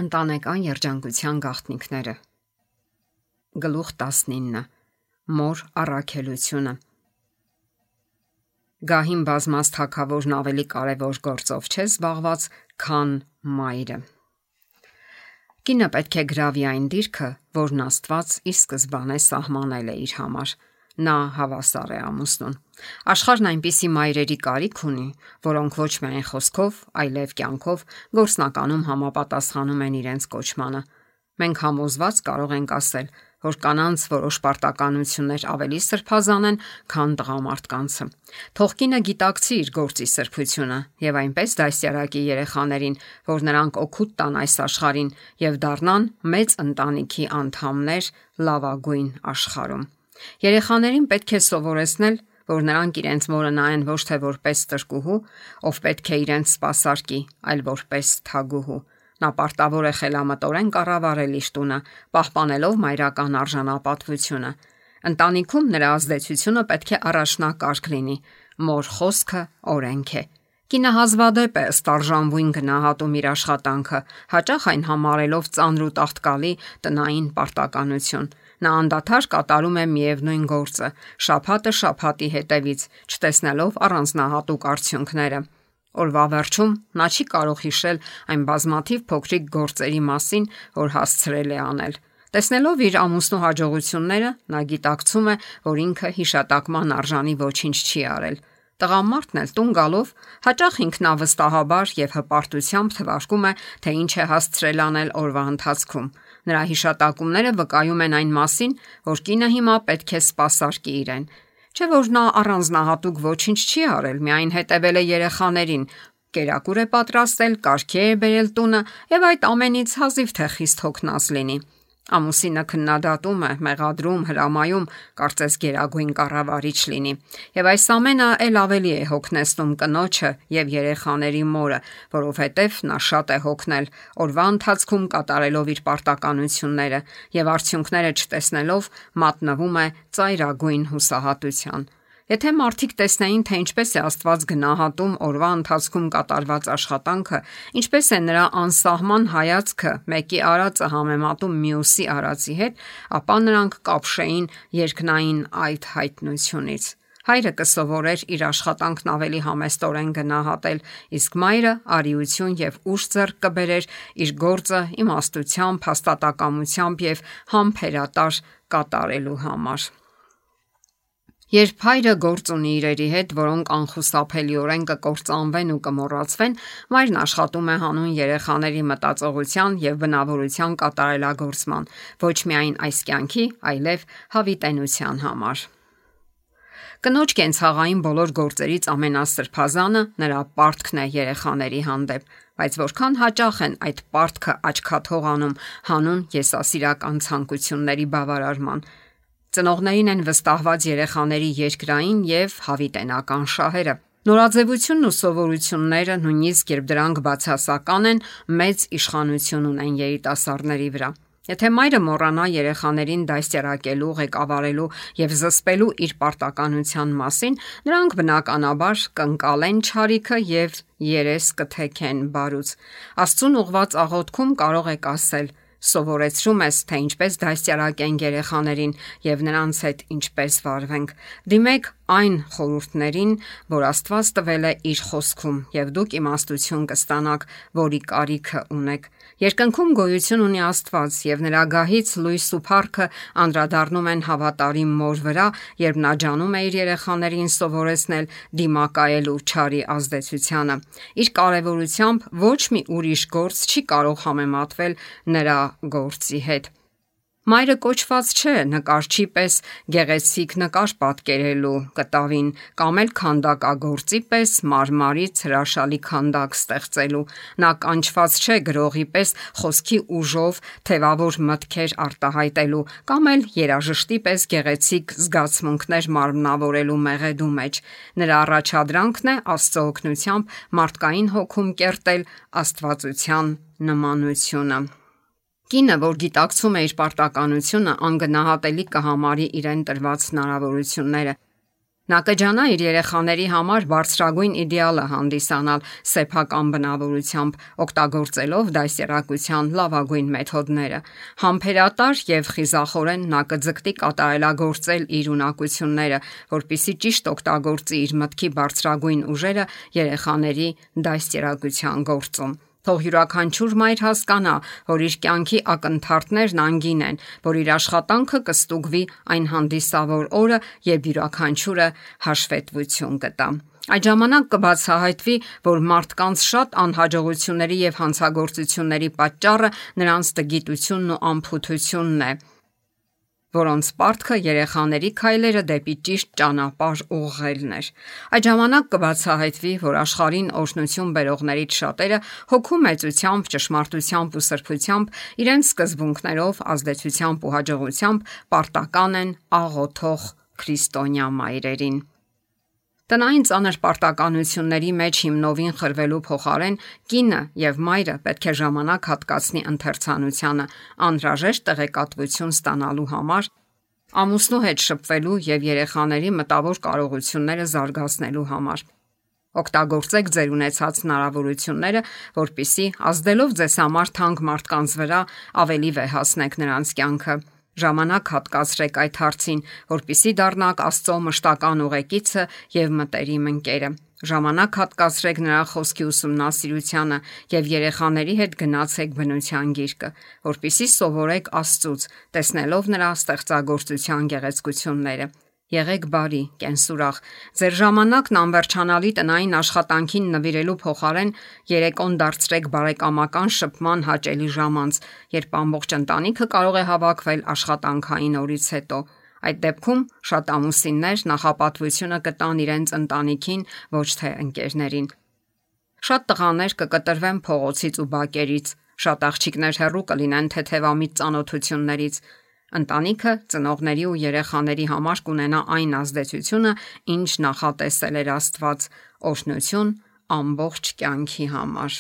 Ընտանեկան երջանկության գաղտնիքները։ Գլուխ 19. Մոր առաքելությունը։ Գահին բազմած թագավորն ավելի կարևոր գործով չէ զբաղված, քան մայրը։ Կինը պետք է գրավի այն դիրքը, որն Աստված ի սկզբանե սահմանել է իր համար։ Նա հավասար է ամուսնուն։ Աշխարհն այնպիսի մայրերի կարիք ունի, որոնք ոչ միայն խոսքով, այլև կյանքով գործնականում համապատասխանում են իրենց կոչմանը։ Մենք համոզված կարող ենք ասել, որ կանանց որոշ պարտականություններ ավելի սրբազան են, քան տղամարդկանցը։ Թող կինը գիտակցի իր գործի սրբությունը եւ այնպես դասյարակի երեխաներին, որ նրանք օգուտ տան այս աշխարհին եւ դառնան մեծ ընտանիքի անդամներ լավագույն աշխարհում։ Երեխաներին պետք է սովորեցնել, որ նրանք իրենց մորը նայեն ոչ թե որպես տրկուհու, ով պետք է իրենց սպասարկի, այլ որպես թագուհու։ Նա պարտավոր է խելամտորեն կառավարել իր տունը, պահպանելով մայրական արժանապատվությունը։ Ընտանիքում նրա ազդեցությունը պետք է առաջնակարգ լինի։ Մոր խոսքը օրենք է։ Կինը հազվադեպ է ստարժանվույն գնահատում իր աշխատանքը, հաճախ այն համարելով ծանր ու տաղտկալի տնային պարտականություն։ Նա անդադար կատարում է միևնույն գործը, շաբաթը շաբաթի հետևից, չտեսնելով առանձնահատուկ արդյունքները։ Օրվա վերջում նա չի կարող հիշել այն բազմաթիվ փոքրիկ գործերի մասին, որ հասցրել է անել։ Տեսնելով իր ամուսնու հաջողությունները, նա գիտակցում է, որ ինքը հիշատակման արժանի ոչինչ չի արել։ Տղամարդն էլ տուն գալով հաճախ ինքնավստահաբար եւ հպարտությամբ թվարկում է, թե ինչ է հասցրել անել օրվա ընթացքում։ Նրա հիշատակումները վկայում են այն մասին, որ կինը հիմա պետք է սպասարկի իրեն։ Չէ՞ որ նա առանձնահատուկ ոչինչ չի արել, միայն հետևել է երեխաներին, կերակուր է պատրաստել, կարգի է բերել տունը եւ այդ ամենից հազիվ թե խիստ հոգնած լինի։ Ամուսինը քննադատում է, մեղադրում, հրամայում, կարծես գերագույն կառավարիչ լինի։ Եվ այս ամենը ել ավելի է հոգնեցնում կնոջը եւ երեխաների մորը, որովհետեւ նա շատ է հոգնել օրվա ընթացքում կատարելով իր պարտականությունները եւ արդյունքները չտեսնելով մատնվում է ծայրագույն հուսահատության։ Եթե մարդիկ տեսնեին, թե ինչպես է Աստված գնահատում օրվա ընթացքում կատարված աշխատանքը, ինչպես է նրա անսահման հայացքը մեկի արածը համեմատում մյուսի արածի հետ, ապա նրանք կապշեին երկնային այդ հայտնությունից։ Հայրը կսովորեր իր աշխատանքն ավելի համեստորեն գնահատել, իսկ մայրը արիություն եւ ուժ ձեռք կբերեր իր գործը իմաստությամբ, հաստատակամությամբ եւ համբերատար կատարելու համար։ Երբ հայրը գործ ունի իրերի հետ, որոնք անխուսափելիորեն կկործանվեն ու կմոռացվեն, մայրն աշխատում է հանուն երեխաների մտածողության եւ բնավորության կատարելագործման, ոչ միայն այս կյանքի, այլև հավիտենության համար։ Կնոջ կենցաղային բոլոր գործերից ամենասրբազանը նրա պարտքն է երեխաների հանդեպ, բայց որքան հաճախ են այդ պարտքը աչքաթող անում հանուն եսասիրական ցանկությունների բավարարման։ Ծնողներին են վստահված երեխաների երկրային եւ հավիտենական շահերը։ Նորաձևությունն ու սովորությունները, նույնիսկ երբ դրանք բացասական են, մեծ իշխանություն ունեն երիտասարդների վրա։ Եթե մայրը մոռանա երեխաներին դաստիարակելու, ղեկավարելու եւ զսպելու իր պարտականության մասին, նրանք բնականաբար կընկալեն չարիքը եւ երես կթեքեն բարուց։ Աստծուն ուղված աղոթքում կարող եք ասել. Սովորեցրում ես, թե ինչպես դաստիարակենք երեխաներին եւ նրանց հետ ինչպես վարվենք։ Դիմեք այն խորհուրդներին, որ Աստված տվել է իր խոսքում, եւ դուք իմաստություն կստանաք, որի կարիքը ունեք։ Երկնքում գոյություն ունի Աստված եւ նրա գահից լույս ու փառքը անդրադառնում են հավատարիմ մոր վրա, երբ նա ջանում է իր երեխաներին սովորեցնել դիմակայելու չարի ազդեցությանը։ Իր կարևորությամբ ոչ մի ուրիշ գործ չի կարող համեմատվել նրա գործի հետ։ Մայրը կոչված չէ նկարչի պես գեղեցիկ նկար պատկերելու կտավին կամ էլ քանդակագործի պես մարմարից հրաշալի քանդակ ստեղծելու։ Նա կանչված չէ գրողի պես խոսքի ուժով թևավոր մտքեր արտահայտելու կամ էլ երաժշտի պես գեղեցիկ զգացմունքներ մարմնավորելու մեղեդու մեջ։ Նրա առաջադրանքն է Աստծո օգնությամբ մարդկային հոգում կերտել աստվածության նմանությունը։ Կինը, որ գիտակցում է իր պարտականությունը, անգնահատելի կհամարի իրեն տրված հնարավորությունները։ Նա կջանա իր երեխաների համար բարձրագույն իդեալը հանդիսանալ սեփական բնավորությամբ, օգտագործելով դաստիարակության լավագույն մեթոդները։ Համբերատար եւ խիզախորեն նա կձգտի կատարելագործել իր ունակությունները, որպեսզի ճիշտ օգտագործի իր մտքի բարձրագույն ուժերը երեխաների դաստիարակության գործում։ Թող յուրաքանչյուր մայր հասկանա, որ իր կյանքի ակնթարթներն անգին են, որ իր աշխատանքը կստուգվի այն հանդիսավոր օրը, երբ յուրաքանչյուրը հաշվետվություն կտա։ Այդ ժամանակ կբացահայտվի, որ մարդկանց շատ անհաջողությունների եւ հանցագործությունների պատճառը նրանց տգիտությունն ու անփութությունն է, որոնց պարտքը երեխաների քայլերը դեպի ճիշտ ճանապարհ ուղղելն էր։ Այդ ժամանակ կբացահայտվի, որ աշխարհին օրհնություն բերողներից շատերը հոգու մեծությամբ, ճշմարտությամբ ու սրբությամբ, իրենց սկզբունքներով, ազդեցությամբ ու հաջողությամբ պարտական են աղոթող քրիստոնյա մայրերին։ Տնային ծանր պարտականությունների մեջ հիմնովին խրվելու փոխարեն կինը եւ մայրը պետք է ժամանակ հատկացնի ընթերցանությանը, անհրաժեշտ տեղեկատվություն ստանալու համար, ամուսնու հետ շփվելու եւ երեխաների մտավոր կարողությունները զարգացնելու համար։ Օգտագործեք ձեր ունեցած հնարավորությունները, որպեսզի ազդելով ձեզ համար թանկ մարդկանց վրա ավելի վեհացնեք նրանց կյանքը։ Ժամանակ հատկացրեք այդ հարցին, որպեսզի դառնաք Աստծո մշտական ուղեկիցը եւ մտերիմ ընկերը։ Ժամանակ հատկացրեք նրա խոսքի ուսումնասիրությանը եւ երեխաների հետ գնացեք բնության գիրկը, որպեսզի սովորեք Աստծուց, տեսնելով նրա ստեղծագործության գեղեցկությունները։ Եղեք բարի, կենսուրախ։ Ձեր ժամանակն անվերջանալի տնային աշխատանքին նվիրելու փոխարեն երեկոն դարձրեք բարեկամական շփման հաճելի ժամանց, երբ ամբողջ ընտանիքը կարող է հավաքվել աշխատանքային օրից հետո։ Այդ դեպքում շատ ամուսիններ նախապատվությունը կտան իրենց ընտանիքին, ոչ թե ընկերներին։ Շատ տղաներ կկտրվեն փողոցից ու բակերից, շատ աղջիկներ հեռու կլինեն թեթևամիտ ծանոթություններից։ Ընտանիքը ծնողների ու երեխաների համար կունենա այն ազդեցությունը, ինչ նախատեսել էր Աստված, օրհնություն ամբողջ կյանքի համար։